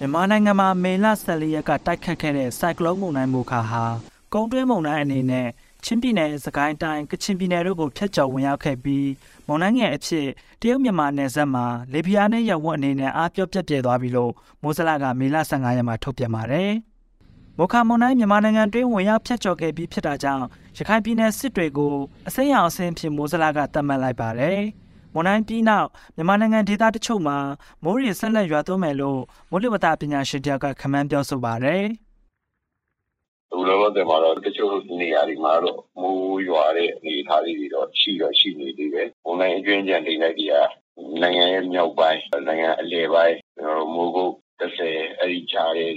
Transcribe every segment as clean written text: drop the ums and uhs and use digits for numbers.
မြန်မာနိုင်ငံမှာမေလ14ရက်ကတိုက်ခတ်ခဲ့တဲ့ဆိုင်ကလုန်းမုန်တိုင်းမိုခါဟာကုန်းတွင်းမုန်တိုင်းအနေနဲ့ချင်းပြည်နယ်စကိုင်းတိုင်းကချင်ပြည်နယ်တို့ကိုဖျက်ကျော်ဝင်ရောက်ခဲ့ပြီးမုန်တိုင်းငယ်အဖြစ်တရုတ်မြန်မာနယ်စပ်မှာလေပြင်းနဲ့ရပ်ဝန်းအနေနဲ့အားပြော့ပြက်ပြဲသွားပြီလို့မိုးစလကမေလ15ရက်မှာထုတ်ပြန်ပါတယ်။မိုခါမုန်တိုင်းမြန်မာနိုင်ငံတွင်းဝင်ရောက်ဖျက်ကျော်ခဲ့ပြီးဖြစ်တာကြောင့်ရခိုင်ပြည်နယ်စစ်တွေကိုအစိမ်းရောင်အဆင့်ဖြစ်မိုးစလကသတ်မှတ်လိုက်ပါတယ်။မုန်တိုင်းပြီးနောက်မြန်မာနိုင်ငံဒေသတချို့မှာမိုးရေဆက်လက်ရွာသွန်းမယ်လို့မိုးလေဝသပညာရှင်တယောက်ကခန့်မှန်းပြောဆိုပါတယ်။ဒီလိုတော့မှာတော့တချို့နေရာတွေမှာတော့မိုးရွာတဲ့အနေအထားတွေတော့ရှိနေသေးတယ်။မုန်တိုင်းအကျွင်းကြံတိမ်လိုက်တွေကနိုင်ငံရဲ့မြောက်ပိုင်းနိုင်ငံအလယ်ပိုင်းမိုးကုတ်30အဲ့ဒီကြားတွေ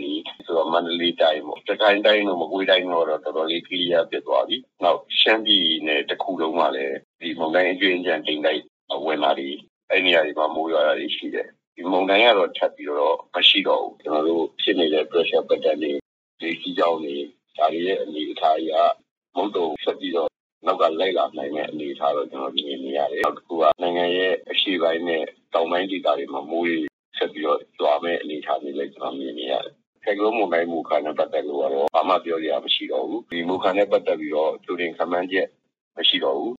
ဆိုတော့မန္တလေးတိုင်းပေါ့တခိုင်တိုင်းတို့မကွေးတိုင်းတို့တော့တော်တော်လေးကလျားပြတ်သွားပြီ။နောက်ရှမ်းပြည်နယ်တစ်ခုလုံးမှာလည်းဒီမုန်တိုင်းအကျွင်းကြံတိမ်လိုက်ဝင်လာပြီးအဲ့နေရာတွေမှာမိုးရွာတာတွေရှိတယ်ဒီမုန်တိုင်းကတော့ထပ်ပြီးတော့မရှိတော့ဘူးကျွန်တော်တို့ဖြစ်နေတဲ့ pressure pattern တွေဒီစီကြောင်းတွေဒါတွေရဲ့အနေအထားအရမုတ်တုံဆက်ပြီးတော့နောက်ကလိုက်လာနိုင်တဲ့အနေအထားတော့ကျွန်တော်မြင်နေရတယ်နောက်တစ်ခုကနိုင်ငံရဲ့အရှေ့ပိုင်းနဲ့တောင်ပိုင်းဒေသတွေမှာမိုးတွေဆက်ပြီးတော့ကြွားမဲ့အနေအထားတွေလည်းကျွန်တော်မြင်နေရတယ်ဆိုင်ကလုန်းမုန်တိုင်းမူခါနဲ့ပတ်သက်လို့ကတော့ဘာမှပြောရမရှိတော့ဘူးဒီမူခါနဲ့ပတ်သက်ပြီးတော့သူတင်ခန့်မှန်းချက်မရှိတော့ဘူး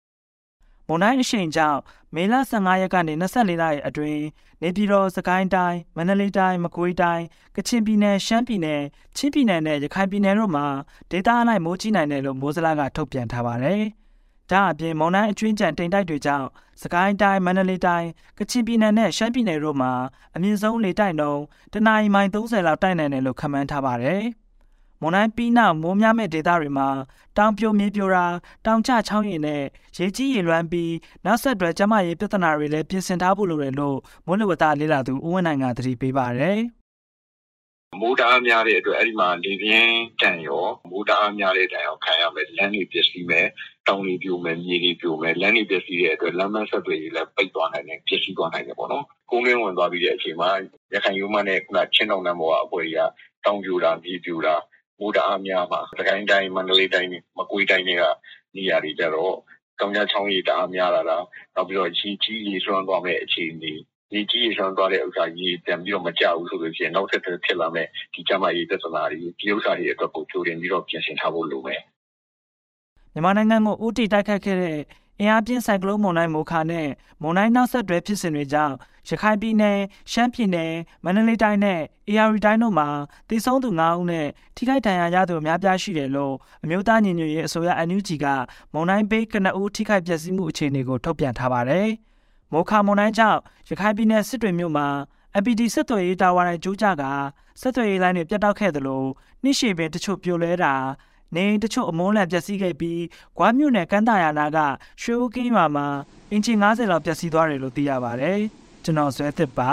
မုန်တိုင်းအရှိန်ကြောင့်မေလ15ရက်ကနေ24ရက်အတွင်းနေပြည်တော်စကိုင်းတိုင်းမန္တလေးတိုင်းမကွေးတိုင်းကချင်ပြည်နယ်ရှမ်းပြည်နယ်ချင်းပြည်နယ်နဲ့ရခိုင်ပြည်နယ်တို့မှာဒေသအလိုက်မိုးကြီးနိုင်တယ်လို့မိုးစလကထုတ်ပြန်ထားပါတယ်။ဒါအပြင်မုန်တိုင်းအကျွင်းကြံတိမ်တိုက်တွေကြောင့်စကိုင်းတိုင်းမန္တလေးတိုင်းကချင်ပြည်နယ်နဲ့ရှမ်းပြည်နယ်တို့မှာအမြင့်ဆုံးလေတိုက်နှုန်းတနအီမိုင်30လောက်တိုက်နိုင်တယ်လို့ခန့်မှန်းထားပါတယ်။မွန်တိုင်းပြီးနောက်မိုးများမဲ့ဒေသတွေမှာတောင်ပြိုမြေပြိုတာတောင်ကျချောင်းရည်နဲ့ရေကြီးရေလွှမ်းပြီးနောက်ဆက်တွဲကျန်းမာရေးပြဿနာတွေလည်းပြင်ဆင်ထားဖို့လိုတယ်လို့မိုးလေဝသလေ့လာသူဦးဝင်းနိုင်ကသတိပေးပါတယ်။မိုးတအားများတဲ့အတွက်အဲ့ဒီမှာလေပြင်းတန်ရောမိုးတအားများတဲ့တန်ရောခံရမယ်လမ်းတွေပျက်စီးမယ်တောင်တွေပြိုမယ်မြေတွေပြိုမယ်လမ်းတွေပျက်စီးတဲ့အတွက်လမ်းမဆက်တွေလည်းပိတ်သွားနိုင်တယ်ပျက်စီးသွားနိုင်တယ်ပေါ့နော်။ကုန်းတွင်းဝင်သွားပြီးတဲ့အချိန်မှာရခိုင်ရိုးမနဲ့ခုနချင်းတောင်တန်းပေါ်ကအပွဲကြီးကတောင်ပြိုတာမြေပြိုတာမိုးတအားများမှာစကိုင်းတိုင်းမန္တလေးတိုင်းမကွေးတိုင်းတွေကနေရာတွေကြတော့တောင်ကျချောင်းရည်တအားများလာတာနောက်ပြီးတော့ကြီးရေဆွမ်းသွားမဲ့အခြေအနေရေကြီးရေဆွမ်းသွားတဲ့ဥစ္စာရေပြန်ပြီးတော့မကြဘူးဆိုလို့ရှိရင်နောက်ဆက်တွဲဖြစ်လာမဲ့ဒီကျန်းမာရေးပြဿနာတွေဒီဥစ္စာတွေအတွက်ကိုကြိုတင်ပြီးတော့ပြင်ဆင်ထားဖို့လိုမယ်မြန်မာနိုင်ငံကိုဦးတည်တိုက်ခတ်ခဲ့တဲ့အင်အားပြင်းဆိုင်ကလုန်းမုန်တိုင်းမိုခါနဲ့မုန်တိုင်းနောက်ဆက်တွဲဖြစ်စဉ်တွေကြောင့်ရခိုင်ပြည်နယ်ရှမ်းပြည်နယ်မန္တလေးတိုင်းနဲ့အေရရီတိုင်းတို့မှာတည်ဆုံးသူ9ဦးနဲ့ထိခိုက်ဒဏ်ရာရသူအများပြားရှိတယ်လို့အမျိုးသားညီညွတ်ရေးအစိုးရ NUG ကမုန်တိုင်းပေးကနဦးထိခိုက်ပျက်စီးမှုအခြေအနေကိုထုတ်ပြန်ထားပါတယ်။မိုခါမုန်တိုင်းကြောင့်ရခိုင်ပြည်နယ်စစ်တွေမြို့မှာ MPT ဆက်သွယ်ရေးတာဝါတိုင်ကျိုးကျကဆက်သွယ်ရေးလိုင်းတွေပြတ်တောက်ခဲ့သလိုနှိရှိပင်တချို့ပြိုလဲတာနေတချို့အမုန်းလန်ပျက်စီးခဲ့ပြီးဂွားမြို့နယ်ကမ်းတာယာနာကရွှေဦးကင်းရွာမှာအင်ဂျင်90လောက်ပျက်စီးသွားတယ်လို့သိရပါတယ်။ကျွန်တော်ဇွဲသစ်ပါ